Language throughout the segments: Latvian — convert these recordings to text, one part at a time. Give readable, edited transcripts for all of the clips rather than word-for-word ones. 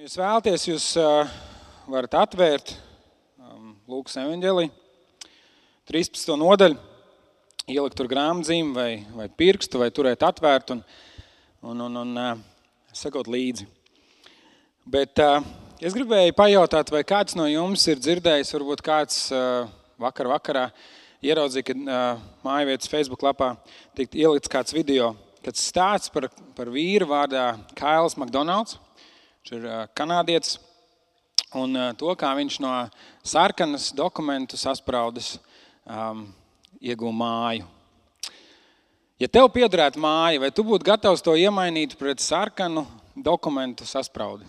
Jūs vēlaties, jūs varat atvērt Lūkas evaņģēliju, 13. nodaļu, ielikt tur grāmatzīmi vai pirkstu, vai turēt atvērt un sakot līdzi. Bet es gribēju pajautāt, vai kāds no jums ir dzirdējis, varbūt kāds vakarā ieraudzīja, kad mājvietas Facebook lapā tikt ielikts kāds video, kāds stāsts par vīru vārdā Kails McDonalds. Viņš ir kanādietis, un to, kā viņš no sarkanas dokumentu saspraudes ieguva māju. Ja tev piederētu māja, vai tu būtu gatavs to iemainīt pret sarkanu dokumentu saspraudi?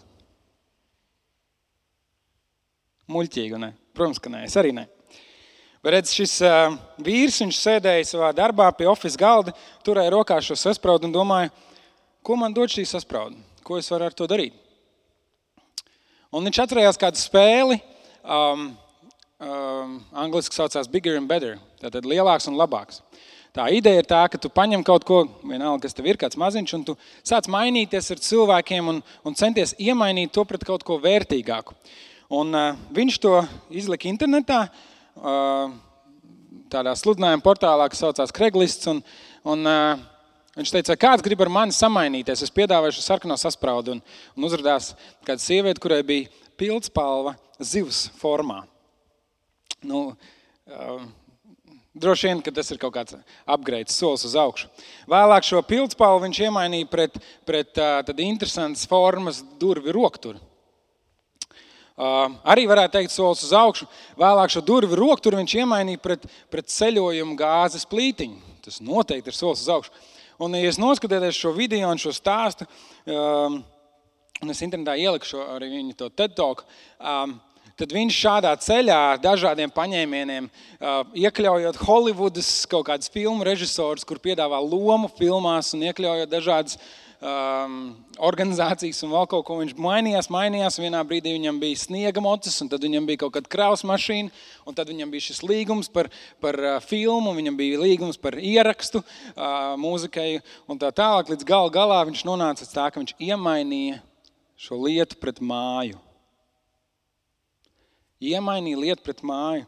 Muļķīgi, ne? Protams, ka nē, es arī ne. Bet redz, šis vīrs, viņš sēdēja savā darbā pie office galda, turēja rokā šo saspraudu un domāja, ko man dod šī sasprauda? Ko es varu ar to darīt? Un viņš atcerējās kādu spēli, angliski saucās Bigger and Better, tātad lielāks un labāks. Tā ideja ir tā, ka tu paņem kaut ko, vienalga, kas tev ir, kāds maziņš, un tu sāc mainīties ar cilvēkiem un centies iemainīt to pret kaut ko vērtīgāku. Un viņš to izlika internetā, tādā sludinājuma portālā, kas saucās Craigslist, un viņš teica, kāds grib ar mani samainīties, es piedāvāju šo sarkano saspraudu, un uzrādās kāda sieviete, kurai bija pildspalva zivs formā. Droši vien, ka tas ir kaut kāds upgrades, solis uz augšu. Vēlāk šo pildspalvu viņš iemainīja pret tad interesantas formas durvi rokturi. Arī varētu teikt solis uz augšu. Vēlāk šo durvi rokturi viņš iemainīja pret ceļojumu gāzes plītiņu. Tas noteikti ir solis uz augšu. Un, ja es noskatieties šo video un šo stāstu, un es internetā ieliku arī viņu to TED Talk, tad viņš šādā ceļā dažādiem paņēmieniem, iekļaujot Hollywoodas kaut kādas filmu režisors, kur piedāvā lomu filmās un iekļaujot dažādas organizācijas un vēl kaut ko, viņš mainījās. Vienā brīdī viņam bija sniega mocis, un tad viņam bija kaut kāda kravas mašīna, un tad viņam bija šis līgums par filmu, viņam bija līgums par ierakstu mūzikai, un tā tālāk līdz galā viņš nonāca tā, ka viņš iemainīja šo lietu pret māju. Iemainīja lietu pret māju.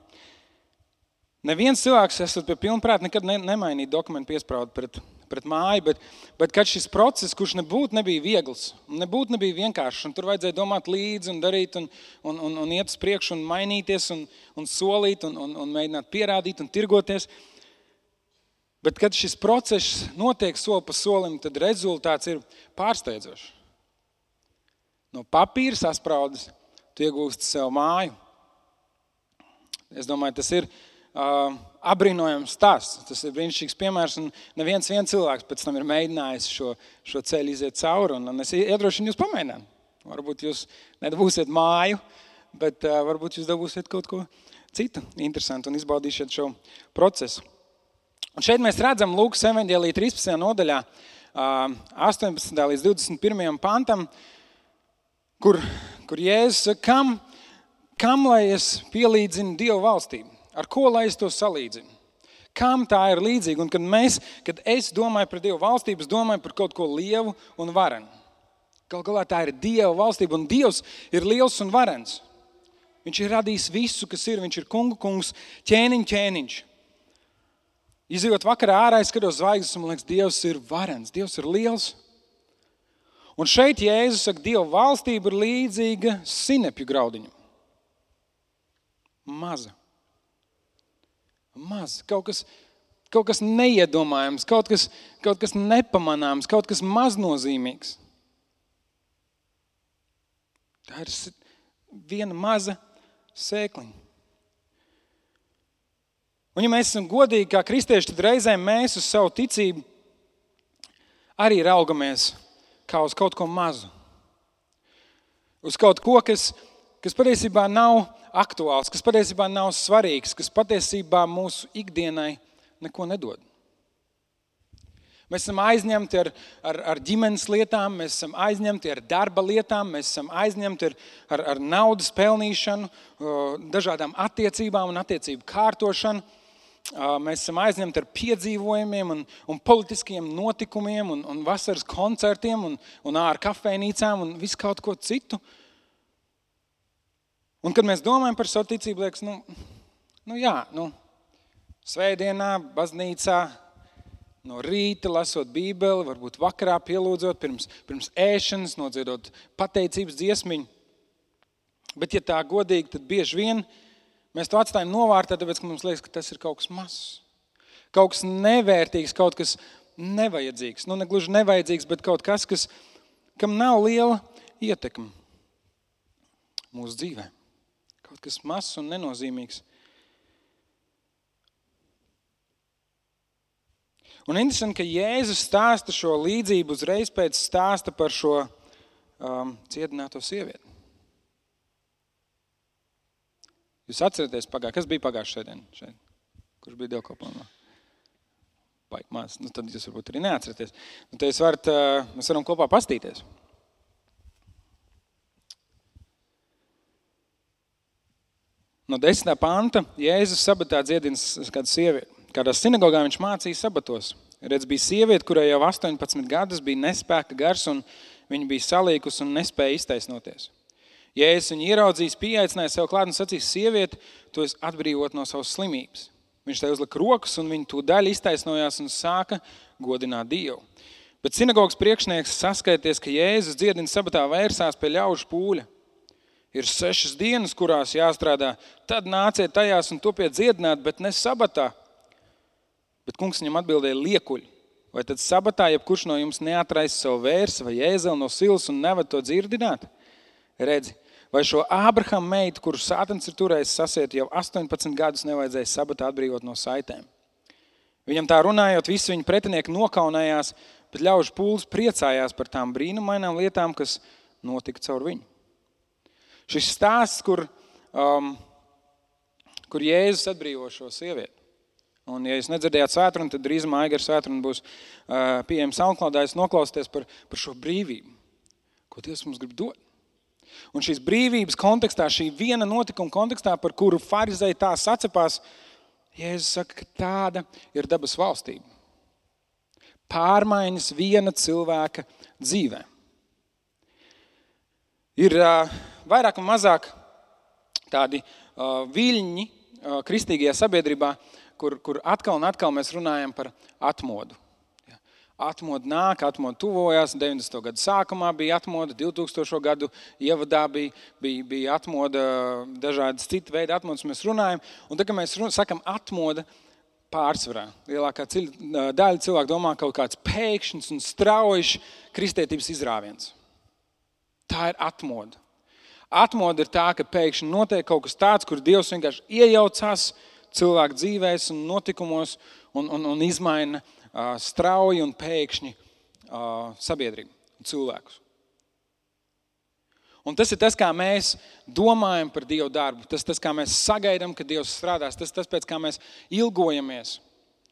Neviens cilvēks, esot pie pilnprāta, nekad nemainīja dokumentu piespraudu pret māju, bet kad šis process, kurš nebija viegls, nebija vienkāršs, un tur vajadzēja domāt līdzi un darīt un iet uz priekšu un mainīties un solīt un mēģināt pierādīt un tirgoties. Bet kad šis process notiek soli pa solim, tad rezultāts ir pārsteidzošs. No papīra saspraudes tu iegūsti sev māju. Es domāju, tas ir abrīnojams stāsts. Tas ir brīnišķīgs piemērs, un neviens cilvēks pēc tam ir mēģinājis šo ceļu iziet cauri, un es iedrošinu jūs pamēģināt. Varbūt jūs nedabūsiet māju, bet varbūt jūs dabūsiet kaut ko citu interesantu un izbaudīsiet šo procesu. Un šeit mēs redzam Lūkas evaņģēlija 13. nodaļā, 18. līdz 21. pantam, kur Jēzus saka, kam lai es pielīdzinu Dievu valstību? Ar ko lai es to salīdzinu? Kam tā ir līdzīga? Un kad es domāju par Dievu valstību, es domāju par kaut ko lielu un varenu. Galu galā tā ir Dieva valstība, un Dievs ir liels un varens. Viņš ir radījis visu, kas ir. Viņš ir kungu kungs, ķēniņš. Izejot vakarā ārā, es skatos zvaigznes, un man liekas, Dievs ir varens, Dievs ir liels. Un šeit Jēzus saka, Dieva valstība ir līdzīga sinepju graudiņam. Maza, kaut kas neiedomājams, kaut kas nepamanāms, kaut kas maznozīmīgs. Tā ir viena maza sēkliņa. Un ja mēs esam godīgi kā kristieši, tad reizēm mēs uz savu ticību arī raugamies kā uz kaut ko mazu. Uz kaut ko, kas patiesībā nav aktuāls, kas patiesībā nav svarīgs, kas patiesībā mūsu ikdienai neko nedod. Mēs esam aizņemti ar ģimenes lietām, mēs esam aizņemti ar darba lietām, mēs esam aizņemti ar naudas pelnīšanu, dažādām attiecībām un attiecību kārtošanu. Mēs esam aizņemti ar piedzīvojumiem un politiskiem notikumiem un vasaras koncertiem un ār kafejnīcām un visu kaut ko citu. Un, kad mēs domājam par savu ticību, liekas, svētdienā, baznīcā, no rīta lasot Bībeli, varbūt vakarā pielūdzot, pirms ēšanas, nodziedot pateicības dziesmiņu. Bet, ja tā godīgi, tad bieži vien mēs to atstājam novārtā, tāpēc, ka mums liekas, ka tas ir kaut kas mazs. Kaut kas nevērtīgs, kaut kas nevajadzīgs. Ne gluži nevajadzīgs, bet kaut kas, kam nav liela ietekme mūsu dzīvē. Kaut kas mazs un nenozīmīgs. Un interesanti, ka Jēzus stāsta šo līdzību uzreiz pēc stāsta par šo cietināto sievieti. Jūs atceraties, kas bija pagājušajā svētdienā šeit? Kurš bija dievkalpojumā? Baigi maz. Tad jūs varbūt arī neatceraties. Tad mēs varam kopā pastīties. No 10. panta Jēzus sabatā dziedina kādu sievieti. Kādā sinagogā viņš mācīja sabatos. Redz, bija sieviete, kurai jau 18 gadus bija nespēka gars, un viņa bija salīkus un nespēja iztaisnoties. Jēzus viņu ieraudzījis, pieaicināja sev klāt un sacīs: sieviete, tu esi atbrīvot no savas slimības. Viņš tai uzlika rokas, un viņa tūdaļ iztaisnojās un sāka godināt Dievu. Bet sinagogas priekšnieks, saskaities, ka Jēzus dziedina sabatā, vērsās pie ļaužu pūļa. Ir 6 dienas, kurās jāstrādā, tad nāciet tajās un topiet dziedināt, bet ne sabatā. Bet kungs viņam atbildēja: liekuļi, vai tad sabatā jebkurš no jums neatraisa savu vērsi vai ēzeli no silas un nevad to dzirdināt? Redzi, vai šo Ābrahama meitu, kuru sātans ir turējis sasiet jau 18 gadus, nevajadzēja sabatā atbrīvot no saitēm? Viņam tā runājot, visi viņa pretinieki nokaunējās, bet ļaužu pūlis priecājās par tām brīnumainām lietām, kas notika caur viņu. Šis stāsts, kur Jēzus atbrīvo šo sievieti. Un, ja jūs nedzirdējāt svētdienu, tad drīzumā Aigara svētdiena būs pieejama SoundCloudā, jūs noklausieties par šo brīvību, ko Dievs mums grib dot. Un šīs brīvības kontekstā, šī viena notikuma kontekstā, par kuru farizeji tā sacepās, Jēzus saka, ka tāda ir dabas valstība. Pārmaiņas viena cilvēka dzīvē. Ir vairāk un mazāk tādi viļņi kristīgajā sabiedrībā, kur atkal un atkal mēs runājam par atmodu. Atmoda nāk, atmoda tuvojās, 90. gadu sākumā bija atmoda, 2000. gadu ievadā bija atmoda, dažādas citu veidu atmodas mēs runājam. Un tad, kad mēs sakam atmoda, pārsvarā lielākā daļa cilvēku domā kaut kāds pēkšņs un straujš kristietības izrāviens. Tā ir atmoda. Atmoda ir tā, ka pēkšņi notiek kaut kas tāds, kur Dievs vienkārši iejaucās cilvēku dzīvēs un notikumos un izmaina strauji un pēkšņi sabiedrību un cilvēkus. Un tas ir tas, kā mēs domājam par Dievu darbu. Tas kā mēs sagaidām, ka Dievs strādās. Tas, pēc kā mēs ilgojamies.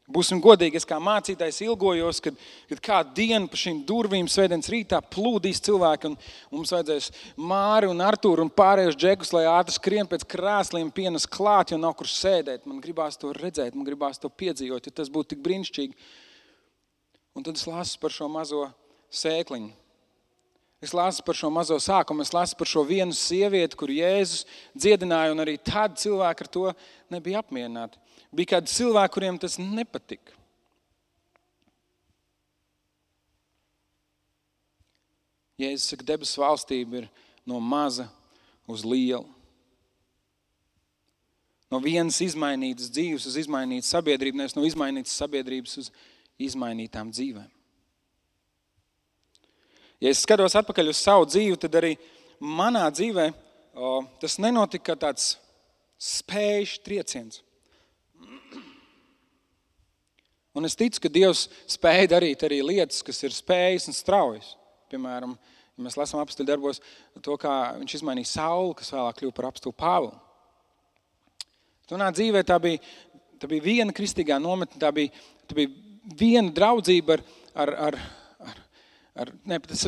Būsim godīgi, es kā mācītājs ilgojos, kad kādu dienu pa šīm durvīm svētdienas rītā plūdīs cilvēki un mums vajadzēs Māri un Artūru un pārējos džekus, lai ātri skrien pēc krāsliem pienas klāt, jo nav kur sēdēt. Man gribās to redzēt, man gribās to piedzīvot, jo tas būtu tik brīnišķīgi. Un tad es lasu par šo mazo sēkliņu. Es lasu par šo mazo sākumu, es lasu par šo vienu sievieti, kur Jēzus dziedināja, un arī tad cilvēki ar to nebija apmierināti. Bija kādi cilvēki, kuriem tas nepatika. Jēzus saka, debesu valstība ir no maza uz lielu. No vienas izmainītas dzīves uz izmainītu sabiedrību, nevis no izmainītas sabiedrības uz izmainītām dzīvēm. Ja es skatos atpakaļ uz savu dzīvi, tad arī manā dzīvē tas nenotika kā tāds spējušs trieciens. Un es ticu, ka Dievs spēja darīt arī lietas, kas ir spējas un straujas. Piemēram, ja mēs lasām apostļu darbos to, kā viņš izmainīja Saulu, kas vēlāk kļuva par apostulu Pāvilu. Manā dzīvē tā bija viena kristīgā nometne, tā bija viena draudzība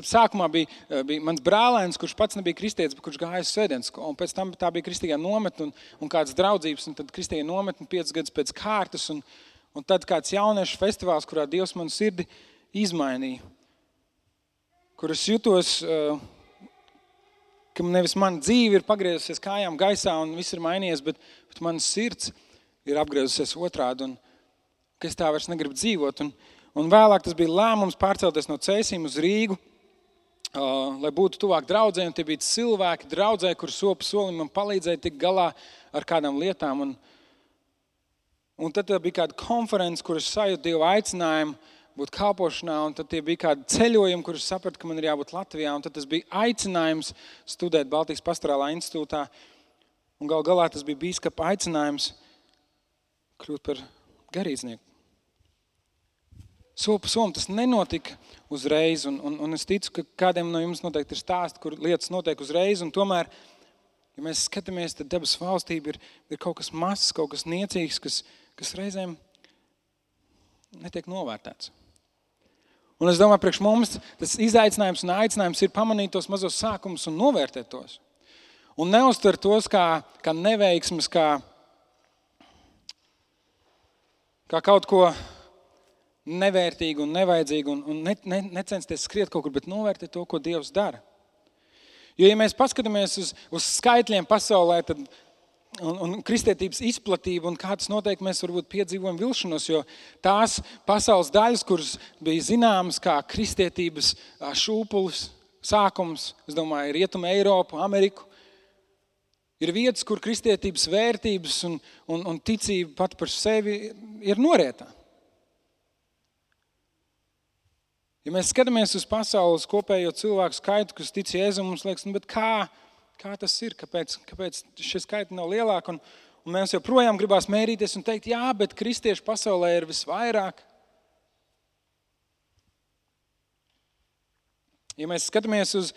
sākumā bija mans brālēns, kurš pats nebija kristietis, bet kurš gāja uz svētdienas skolu. Un pēc tam tā bija kristīgā nometne un kādas draudzības, un tad kristīgā nometne 5 gadus pēc kārtas, un tad kāds jauniešu festivāls, kurā Dievs manu sirdi izmainīja, kur es jutos ka nevis mana dzīve ir pagriezusies kājām gaisā un viss ir mainījies, bet mana sirds ir apgriezusies otrādi un ka es tā vairs negribu dzīvot. Un vēlāk tas bija lēmums pārcelties no Cēsīm uz Rīgu, lai būtu tuvāk draudzē, un tie bija cilvēki draudzē, kur sopu solim man palīdzēja tik galā ar kādām lietām. Un tad bija kāda konference, kur es sajūtu Dievu aicinājumu būt kalpošanā, un tad tie bija kādi ceļojumi, kur es sapratu, ka man ir jābūt Latvijā, un tad tas bija aicinājums studēt Baltijas pastorālā institūtā, un galā tas bija bīskapa aicinājums kļūt par garīdznieku. Sopa som tas nenotika uzreiz, un es ticu, ka kādiem no jums noteikti ir stāsti, kur lietas notiek uzreiz, un tomēr, ja mēs skatāmies, tad debes valstība ir kaut kas mazs, kaut kas niecīgs, kas reizēm netiek novērtēts. Un es domāju, priekš mums tas izaicinājums un aicinājums ir pamanīt tos mazos sākumus un novērtēt tos. Un neuztver tos kā neveiksmes, kā kaut ko nevērtīgu un nevajadzīgu un necensties skriet kaut kur, bet novērtēt to, ko Dievs dara. Jo, ja mēs paskatāmies uz skaitļiem pasaulē, tad un kristietības izplatība un kā tas notiek, mēs varbūt piedzīvojam vilšanos, jo tās pasaules daļas, kuras bija zināmas kā kristietības šūpulis, sākums, es domāju, Rietuma Eiropu, Ameriku, ir vietas, kur kristietības vērtības un ticība pat par sevi ir norietā. Ja mēs skatāmies uz pasaules kopējo cilvēku skaitu, kas tic Jēzum, mums liekas, bet kā tas ir, kāpēc šie skaiti nav lielāki, un mēs joprojām gribās mērīties un teikt, jā, bet kristiešu pasaulē ir visvairāk. Ja mēs skatāmies uz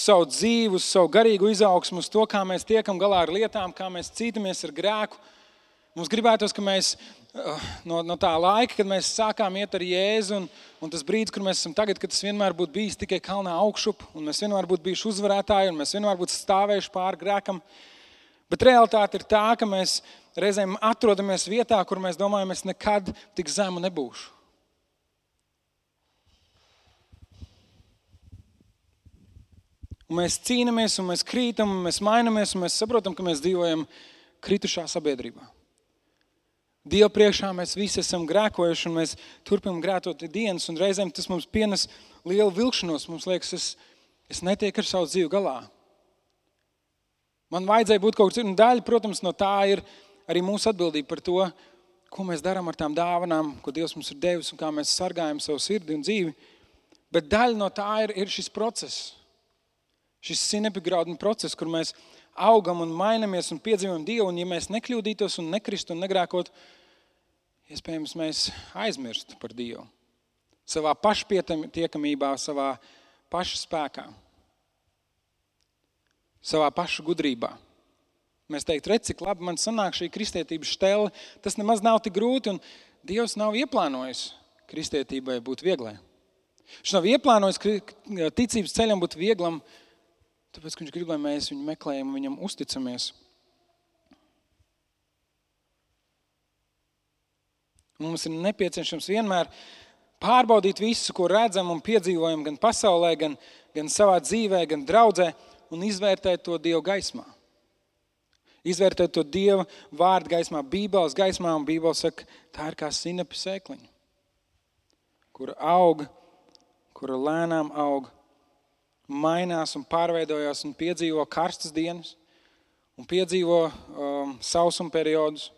savu dzīvi, uz savu garīgu izaugsmu, uz to, kā mēs tiekam galā ar lietām, kā mēs cītamies ar grēku, mums gribētos, ka mēs no tā laika, kad mēs sākām iet ar Jēzu, un tas brīdis, kur mēs esam tagad, kad tas vienmēr būtu bijis tikai kalnā augšup, un mēs vienmēr būtu bijuši uzvarētāji, un mēs vienmēr būtu stāvējuši pāri grēkam. Bet realitāte ir tā, ka mēs reizēm atrodamies vietā, kur mēs domājam, es nekad tik zemu nebūšu. Un mēs cīnamies, un mēs krītam, un mēs mainamies, un mēs saprotam, ka mēs dzīvojam kritušā sabiedrībā. Dievu priekšā mēs visi esam grēkojuši, un mēs turpinam grētot dienas, un reizēm tas mums pienes lielu vilkšanos. Mums liekas, es netieku ar savu dzīvi galā. Man vajadzēja būt kaut kas, un daļa, protams, no tā ir arī mūsu atbildība par to, ko mēs darām ar tām dāvanām, ko Dievs mums ir devis, un kā mēs sargājam savu sirdi un dzīvi. Bet daļa no tā ir šis process, šis sinepigrauduma process, kur mēs augam un mainamies un piedzīvojam Dievu, un ja mēs nekļūdītos un nekristu un negrēkot, iespējams, mēs aizmirstu par Dievu. Savā pašpietiekamībā, savā paša spēkā, savā paša gudrībā. Mēs teikt, redz, cik labi man sanāk šī kristietības štele, tas nemaz nav tik grūti, un Dievs nav ieplānojis kristietībai būt vieglai. Viņš nav ieplānojis ticības ceļam būt vieglam, tāpēc, ka viņš grib, lai mēs viņu meklējam un viņam uzticamies. Mums ir nepieciešams vienmēr pārbaudīt visu, ko redzam un piedzīvojam gan pasaulē, gan savā dzīvē, gan draudzē, un izvērtēt to Dievu gaismā. Izvērtēt to Dieva vārdu gaismā, Bībeles gaismā, un Bībele saka, tā ir kā sinepi sēkliņa, kura aug, kura lēnām aug, mainās un pārveidojās un piedzīvo karstas dienas un piedzīvo sausuma periodus.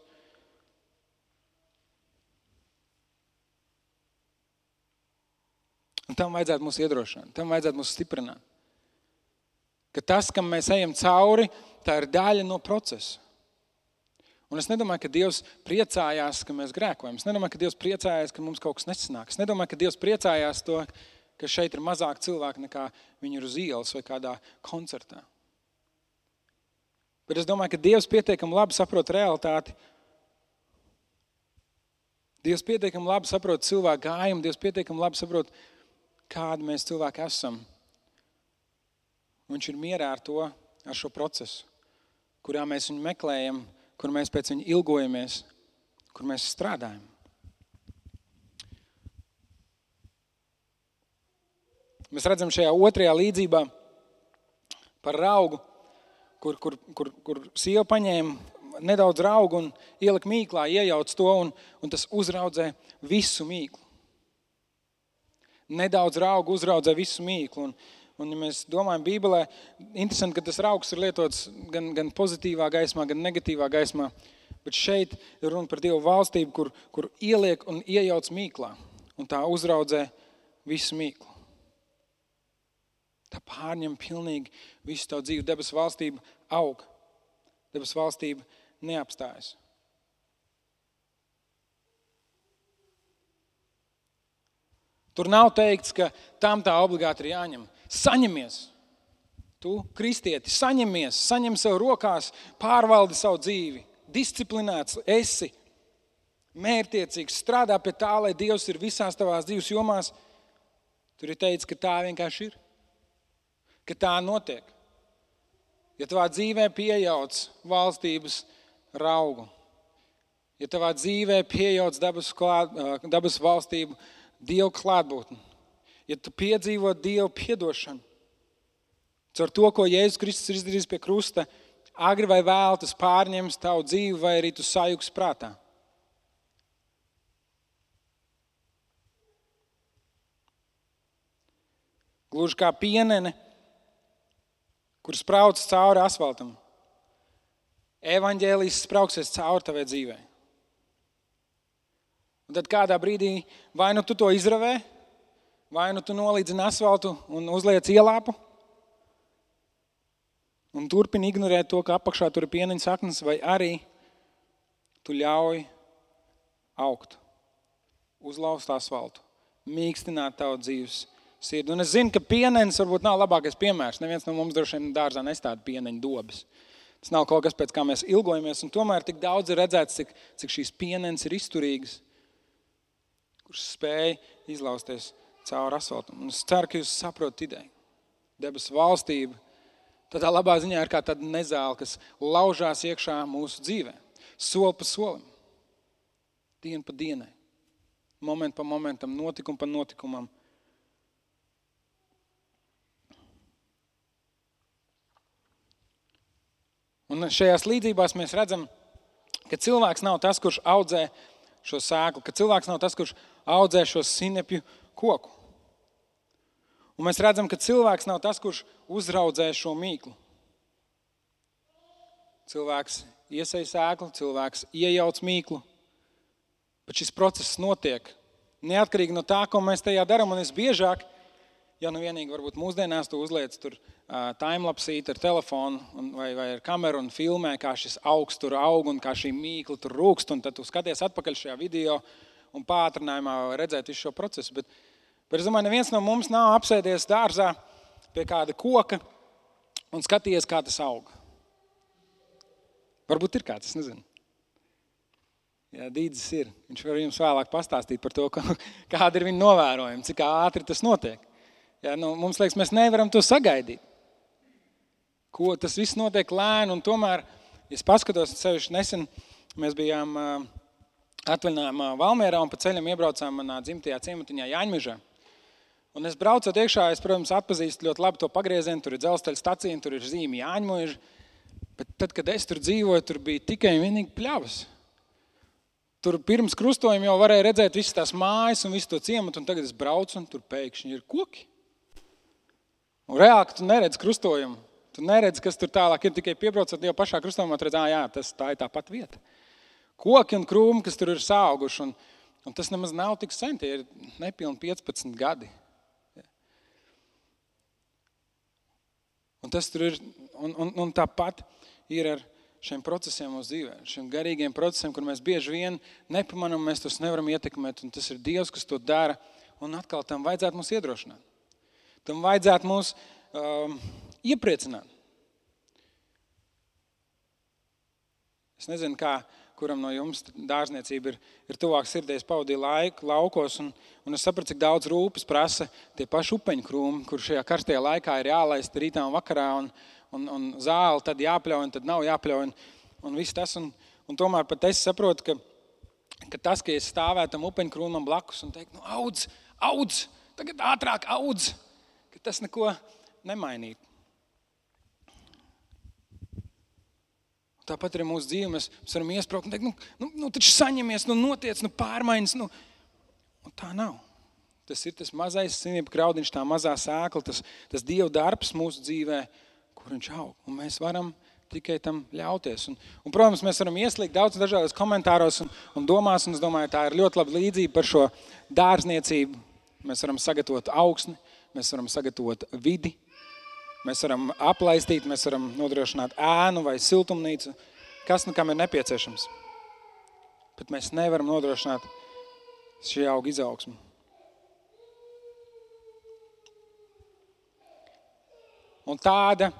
Un tam vajadzētu mūs iedrošināt, tam vajadzētu mūs stiprināt. Ka tas, kam mēs ejam cauri, tā ir daļa no procesa. Un es nedomāju, ka Dievs priecājās, ka mēs grēkojam. Es nedomāju, ka Dievs priecājās, ka mums kaut kas nesanāk. Es nedomāju, ka Dievs priecājās to, ka šeit ir mazāk cilvēku nekā viņi ir uz ielas vai kādā koncertā. Bet es domāju, ka Dievs pietiekami labi saprot realitāti. Dievs pietiekami labi saprot cilvēku gājumu, Dievs pietiekami labi saprot, kādi mēs cilvēki esam. Viņš ir mierā ar to, ar šo procesu, kurā mēs viņu meklējam, kur mēs pēc viņa ilgojamies, kur mēs strādājam. Mēs redzam šajā otrajā līdzībā Par raugu, kur sieva paņēma nedaudz raugu un ielika mīklā, iejauc to un tas uzraudzē visu mīklu. Nedaudz raugu uzraudzē visu mīklu. Un ja mēs domājam Bībelē, interesanti, ka tas raugs ir lietots gan pozitīvā gaismā, gan negatīvā gaismā. Bet šeit ir runa par Dievu valstību, kur ieliek un iejauc mīklā. Un tā uzraudzē visu mīklu. Tā pārņem pilnīgi visu tavu dzīvi. Debesu valstība aug. Debesu valstība neapstājas. Tur nav teikts, ka tam tā obligāti ir jāņem. Saņemies. Tu, kristieti, saņem sev rokās, pārvaldi savu dzīvi. Disciplinēts esi, mērķtiecīgs, strādā pie tā, lai Dievs ir visās tavās dzīves jomās. Tur ir teikts, ka tā vienkārši ir. Ka tā notiek. Ja tavā dzīvē piejauc valstības raugu, ja tavā dzīvē piejauc dabas valstību Dievu klātbūtni, ja tu piedzīvo Dievu piedošanu, caur to, ko Jēzus Kristus ir izdarījis pie krusta, agri vai vēl tas pārņems tavu dzīvi vai arī tu sajūgs prātā. Gluži kā pienene, kur sprauc cauri asfaltam. Evaņģēlijs sprauksies cauri tavai dzīvē. Un tad kādā brīdī vai nu tu to izravē, vai nu tu nolīdzini asfaltu un uzliec ielāpu un turpini ignorēt to, ka apakšā tur ir pieneņa saknes, vai arī tu ļauj augt, uzlauzt asfaltu, mīkstināt tavu dzīves sirdi. Un es zinu, ka pienenis varbūt nav labākais piemērs. Neviens no mums droši vien dārzā nestāda pieneņa dobes. Tas nav kaut kas, pēc kā mēs ilgojamies, un tomēr tik daudz ir redzēts, cik šīs pienenes ir izturīgas, kurš spēj izlausties cauri asfaltam. Un es ceru, ka jūs saprotat ideju. Debesu valstība tādā labā ziņā ir kā tāda nezāle, kas laužās iekšā mūsu dzīvē. Soli pa solim, dienu pa dienai, momentu pa momentam, notikumu pa notikumam. Un šajās līdzībās mēs redzam, ka cilvēks nav tas, kurš audzē šo sēklu, ka cilvēks nav tas, kurš audzē šo sinepju koku. Un mēs redzam, ka cilvēks nav tas, kurš uzraudzē šo mīklu. Cilvēks iesēj sēklu, cilvēks iejauc mīklu, bet šis process notiek neatkarīgi no tā, ko mēs tajā darām. Un es biežāk, ja nu vienīgi varbūt mūsdienās tu uzliec tur timelapsīt ar telefonu vai ar kameru un filmē, kā šis augs tur aug un kā šī mīkla tur rūkst, un tad tu skaties atpakaļ šajā video un pātrinājumā redzēt visu šo procesu. Bet es domāju, neviens no mums nav apsēdies dārzā pie kāda koka un skatījies, kā tas aug. Varbūt ir kāds, es nezinu. Jā, Dīdzis ir. Viņš var jums vēlāk pastāstīt par to, kāda ir viņa novērojuma, cik ātri tas notiek. Jā, mums liekas, mēs nevaram to sagaidīt. Ko tas viss notiek lēni, un tomēr, ja es paskatos, sevišķi nesen mēs bijām atvaļinājumā Valmierā un pa ceļam iebraucām manā dzimtajā ciematiņā Jāņmežā. Un es braucot iekšā, es, protams, atpazīstu ļoti labi to pagriezienu, tur ir dzelzceļa stacija, tur ir zīme Jāņmeža, bet tad, kad es tur dzīvoju, tur bija tikai vienīgi pļavas. Tur pirms krustojuma jau varēja redzēt visas tās mājas un visu to ciematu, un tagad es braucu, un tur pēkšņi ir koki. Un reāli, tu neredz krustojumu. Tu neredz, kas tur tālāk ir, tikai piebraucot jau pašā krustojumā, tu redz, jā, tā ir tā pat vieta. Koki un krūmi, kas tur ir sauguši, un tas nemaz nav tik sen, tie ir nepilni 15 gadi. Un tas tur ir, un tāpat ir ar šiem procesiem mūsu dzīvē, šiem garīgiem procesiem, kur mēs bieži vien nepamanām, mēs tos nevaram ietekmēt, un tas ir Dievs, kas to dara, un atkal tam vajadzētu mūs iedrošināt. Tam vajadzētu mūs iepriecināt. Es nezinu, kuram no jums dārzniecība ir tuvāk sirdēs pavadīja laiku laukos, un es sapratu, cik daudz rūpes prasa tie paši upeņu krūmi, kur šajā karstajā laikā ir jālaist rītā un vakarā, un zāli tad jāpļauj, un tad nav jāpļauj, un viss tas. Un tomēr pat es saprotu, ka tas, ka es stāvētu tam upeņu krūmam blakus un teikt, audz, tagad ātrāk audz, ka tas neko nemainītu. Tāpat arī mūsu dzīve, mēs varam iespraukt un teikt, taču saņemies, notiec, pārmaiņas. Un tā nav. Tas ir tas mazais sinība graudiņš, tā mazā sēkla, tas Dieva darbs mūsu dzīvē, kur viņš aug. Un mēs varam tikai tam ļauties. Un protams, mēs varam ieslīgt daudz dažādos komentāros un domās, un es domāju, tā ir ļoti laba līdzība par šo dārzniecību. Mēs varam sagatavot augsni, mēs varam sagatavot vidi, mēs varam aplaistīt, mēs varam nodrošināt ēnu vai siltumnīcu, kas kam ir nepieciešams. Bet mēs nevaram nodrošināt šī auga izaugsmu. Un tāda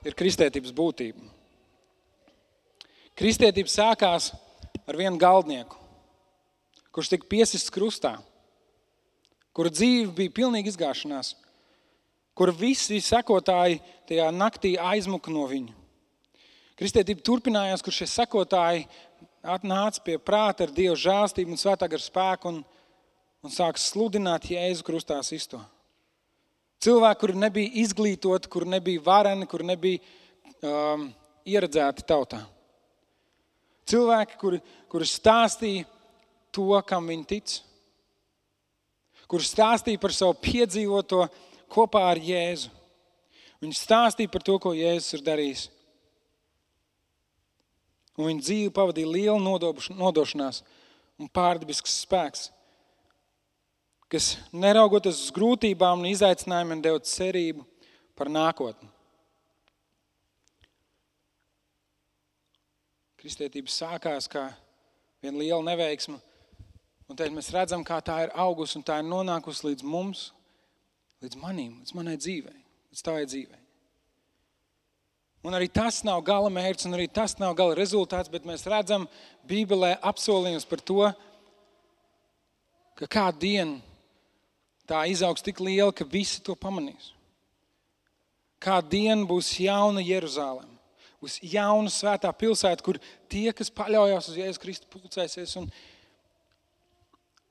ir kristietības būtība. Kristietība sākās ar vienu galdnieku, kurš tika piesists krustā, kura dzīve bija pilnīgi izgāšanās, kura visi sekotāji tajā naktī aizmuka no viņa. Kristietība turpinājās, kur šie sekotāji nāca pie prāta ar Dieva žēlstību un svētā gara spēku un sāka sludināt Jēzu krustā sisto. Cilvēki, kuri nebija izglītoti, kuri nebija vareni, kuri nebija ieredzēti tautā. Cilvēki, kuri stāstīja to, kam viņi tic. Kuri stāstīja par savu piedzīvoto kopā ar Jēzu. Viņi stāstīja par to, ko Jēzus ir darījis. Un viņa dzīve pavadīja lielu nodošanās un pārdabisks spēks, kas neraugoties uz grūtībām un izaicinājumiem deva cerību par nākotni. Kristietība sākās kā viena liela neveiksma, un tad mēs redzam, kā tā ir augusi un tā ir nonākusi līdz mums, līdz manim, līdz manai dzīvei, līdz tavai dzīvei. Un arī tas nav gala mērķis, un arī tas nav gala rezultāts, bet mēs redzam Bībelē apsolījumus par to, ka kādu dienu tā izaugs tik liela, ka visi to pamanīs. Kādu dienu būs jauna Jeruzaleme, būs jauna svētā pilsēta, kur tie, kas paļaujās uz Jēzu Kristu, pulcēsies, un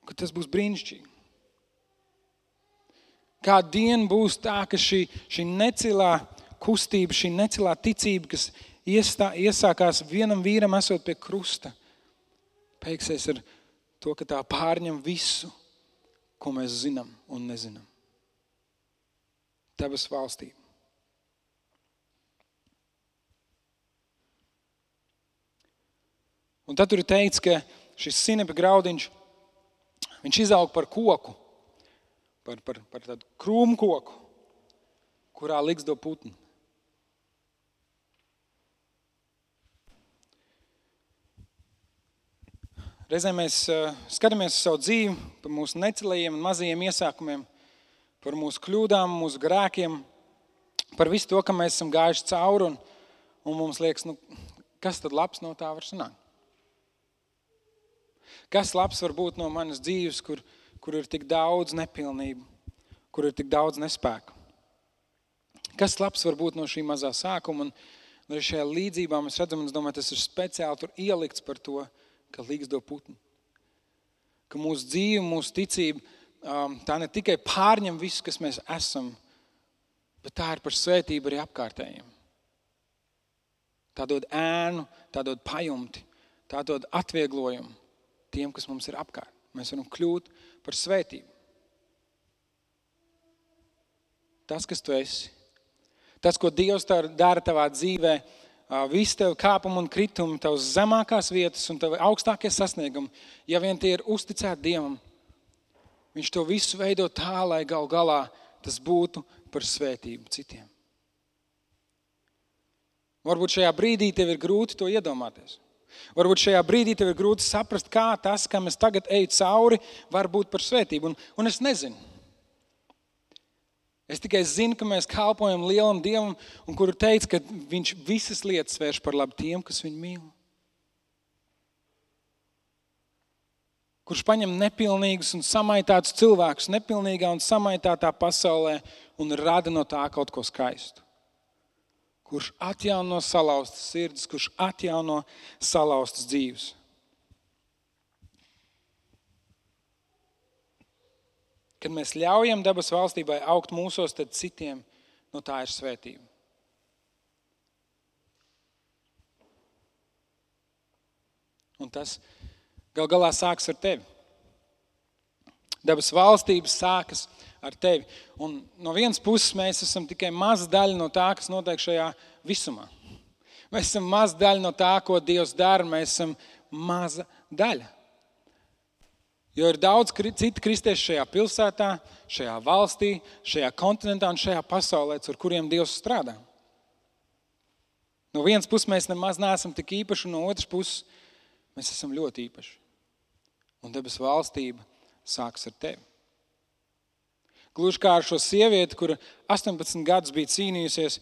ka tas būs brīnišķīgi. Kādu dienu būs tā, ka šī necilā kustība, šī necilā ticība, kas iesākās vienam vīram esot pie krusta, beigsies ar to, ka tā pārņem visu, ko mēs zinām un nezinām. Debes valstība. Un tad tur ir teikts, ka šis sinepa graudiņš, viņš izaug par koku, par tādu krūmu koku, kurā ligzdo putni. Reizēm mēs skatāmies uz savu dzīvi, par mūsu necilajiem un mazajiem iesākumiem, par mūsu kļūdām, mūsu grēkiem, par visu to, kam mēs esam gājuši cauri, un mums liekas, kas tad labs no tā var sanākt? Kas labs var būt no manas dzīves, kur ir tik daudz nepilnību, kur ir tik daudz nespēku? Kas labs var būt no šī mazā sākuma? Un arī šajā līdzībā mēs redzam, un es domāju, tas ir speciāli tur ielikts par to, ka ligzdo putni. Ka mūsu dzīve, mūsu ticība, tā ne tikai pārņem visu, kas mēs esam, bet tā ir par svētību arī apkārtējiem. Tā dod ēnu, tā dod pajumti, tā dod atvieglojumu tiem, kas mums ir apkārt. Mēs varam kļūt par svētību. Tas, kas tu esi, tas, ko Dievs dara tavā dzīvē, visi tev kāpumi un kritumi, tavas zemākās vietas un tavi augstākie sasniegumi, ja vien tie ir uzticēti Dievam, viņš to visu veido tā, lai gal galā tas būtu par svētību citiem. Varbūt šajā brīdī tev ir grūti to iedomāties. Varbūt šajā brīdī tev ir grūti saprast, kā tas, kam es tagad eju cauri, var būt par svētību. Un es nezinu. Es tikai zinu, ka mēs kalpojam lielam Dievam, un kuru teica, ka viņš visas lietas vērš par labu tiem, kas viņu mīl. Kurš paņem nepilnīgus un samaitātus cilvēkus nepilnīgā un samaitātā pasaulē un rada no tā kaut ko skaistu. Kurš atjauno salauztas sirdis, kurš atjauno salauztas dzīves. Kad mēs ļaujam debes valstībai augt mūsos, tad citiem no tā ir svētība. Un tas gal galā sāks ar tevi. Debes valstības sākas ar tevi. Un no vienas puses mēs esam tikai maza daļa no tā, kas notiek šajā visumā. Mēs esam maza daļa no tā, ko Dievs dara. Mēs esam maza daļa. Jo ir daudz citu kristiešu šajā pilsētā, šajā valstī, šajā kontinentā un šajā pasaulē, ar kuriem Dievs strādā. No vienas puses mēs nemaz neesam tik īpaši, un no otras puses mēs esam ļoti īpaši. Un debes valstība sāks ar tevi. Gluži kā ar šo sievieti, kura 18 gadus bija cīnījusies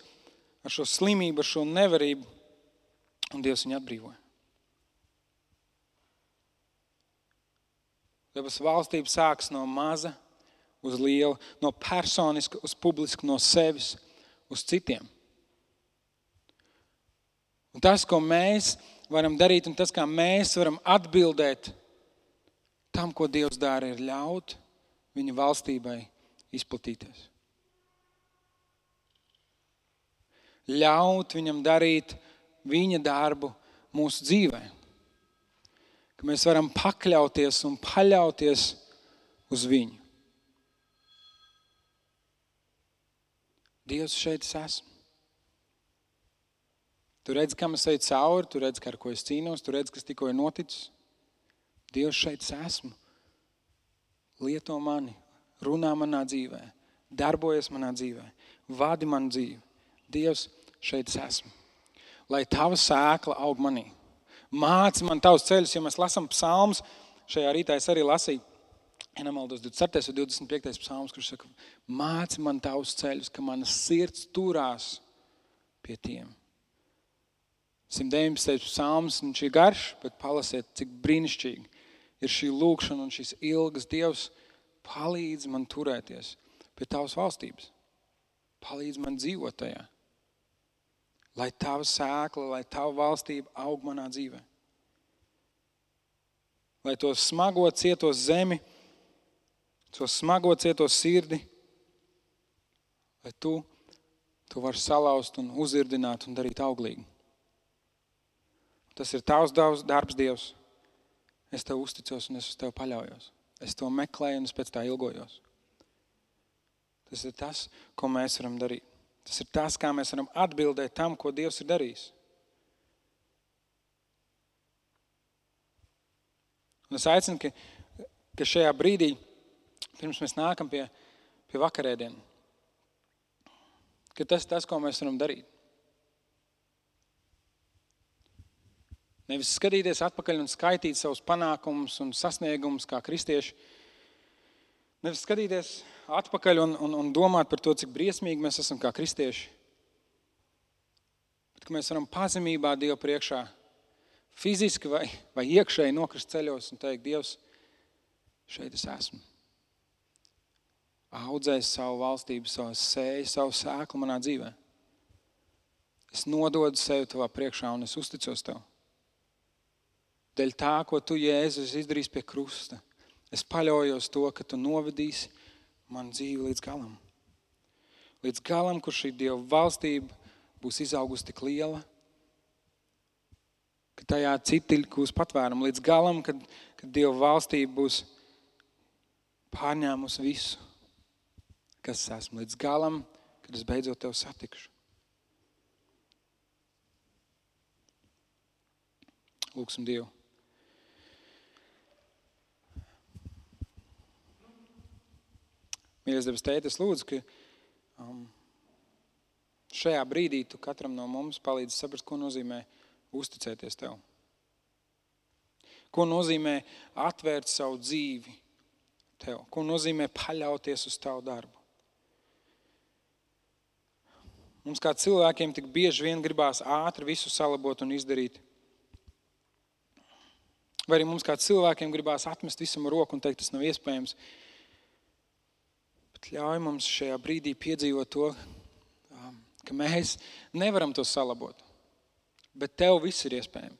ar šo slimību, ar šo nevarību, un Dievs viņu atbrīvoja. Debes valstība sāks no maza uz lielu, no personiska uz publisku, no sevis uz citiem. Un tas, ko mēs varam darīt, un tas, kā mēs varam atbildēt tam, ko Dievs dara, ir ļaut viņa valstībai izplatīties. Ļaut viņam darīt viņa darbu mūsu dzīvē. Ka mēs varam pakļauties un paļauties uz viņu. Dievs, šeit es esmu. Tu redzi, kam es eju cauri, tu redzi, ar ko es cīnos, tu redzi, kas tikko ir noticis. Dievs, šeit es esmu. Lieto mani, runā manā dzīvē, darbojas manā dzīvē, vadi manu dzīvi. Dievs, šeit es esmu. Lai tava sēkla aug manī. Māci man tavus ceļus, ja mēs lasām psalmus. Šajā rītā es arī lasīju, ja nemaldos, 24. un 25. psalmus, kurš saka, māci man tavus ceļus, ka mana sirds turās pie tiem. 119. psalms, viņš ir garš, bet palasiet, cik brīnišķīgi ir šī lūkšana un šīs ilgas. Dievs, palīdz man turēties pie tavas valstības. Palīdz man dzīvot tajā. Lai tava sēkla, lai tava valstība aug manā dzīvē. Lai to smago cieto zemi, to smago cieto sirdi, lai tu vari salauzt un uzirdināt un darīt auglīgi. Tas ir tavs darbs, Dievs. Es tev uzticos un es uz tev paļaujos. Es to meklēju un es pēc tā ilgojos. Tas ir tas, ko mēs varam darīt. Tas ir tas, kā mēs varam atbildēt tam, ko Dievs ir darījis. Un es aicinu, ka šajā brīdī, pirms mēs nākam pie vakarēdienu, ka tas ir tas, ko mēs varam darīt. Nevis skatīties atpakaļ un skaitīt savus panākumus un sasniegumus kā kristieši. Nevis skatīties atpakaļ un domāt par to, cik briesmīgi mēs esam kā kristieši. Bet ka mēs varam pazemībā Dievu priekšā fiziski vai iekšēji nokrist ceļos un teikt, Dievs, šeit es esmu. Audzēs savu valstību, savu sēklu manā dzīvē. Es nododu sevi tavā priekšā un es uzticos tev. Dēļ tā, ko tu, Jēzus, izdarīs pie krusta. Es paļaujos to, ka tu novedīsi manu dzīvi līdz galam. Līdz galam, kur šī Dieva valstība būs izaugusi tik liela, ka tajā citi būs patvērumu. Līdz galam, kad Dieva valstība būs pārņēmusi visu, kas es esmu. Līdz galam, kad es beidzot tev satikšu. Lūksim Dievu. Mīļais debes Tēte, es lūdzu, ka šajā brīdī tu katram no mums palīdzi saprast, ko nozīmē uzticēties tev. Ko nozīmē atvērt savu dzīvi tev. Ko nozīmē paļauties uz tavu darbu. Mums kā cilvēkiem tik bieži vien gribās ātri visu salabot un izdarīt. Vai arī mums kā cilvēkiem gribās atmest visam roku un teikt, tas nav iespējams. Ļauj mums šajā brīdī piedzīvot to, ka mēs nevaram to salabot, bet tev viss ir iespējams.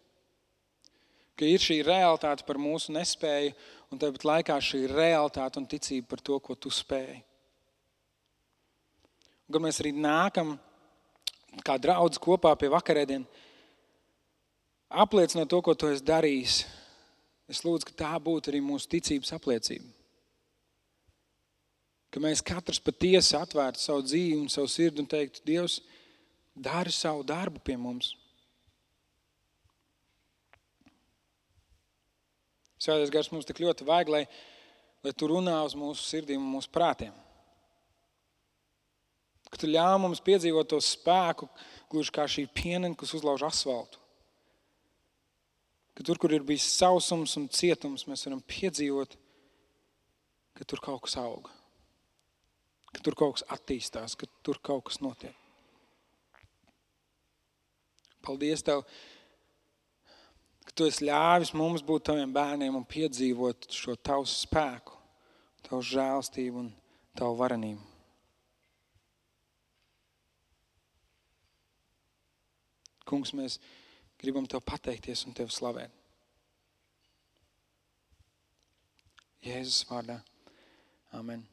Ka ir šī realitāte par mūsu nespēju un tāpat laikā šī realitāte un ticība par to, ko tu spēj. Un kad mēs arī nākam kā draudz kopā pie vakarēdien, apliecinot to, ko tu esi darījis. Es lūdzu, ka tā būtu arī mūsu ticības apliecība. Ka mēs katrs patiesi atvērtu savu dzīvi un savu sirdi un teiktu, Dievs, dari savu darbu pie mums. Svētais Gars mums tik ļoti vajag, lai tu runā uz mūsu sirdīm un mūsu prātiem. Ka tu ļauj mums piedzīvot to spēku, gluži kā šī pienene, kas uzlauž asfaltu. Ka tur, kur ir bijis sausums un cietums, mēs varam piedzīvot, ka tur kaut kas auga. Ka tur kaut kas attīstās, ka tur kaut kas notiek. Paldies Tev, ka Tu esi ļāvis mums būt Taviem bērniem un piedzīvot šo Tavu spēku, Tavu žēlstību un Tavu varenību. Kungs, mēs gribam Tev pateikties un Tev slavēt. Jēzus vārdā. Amen.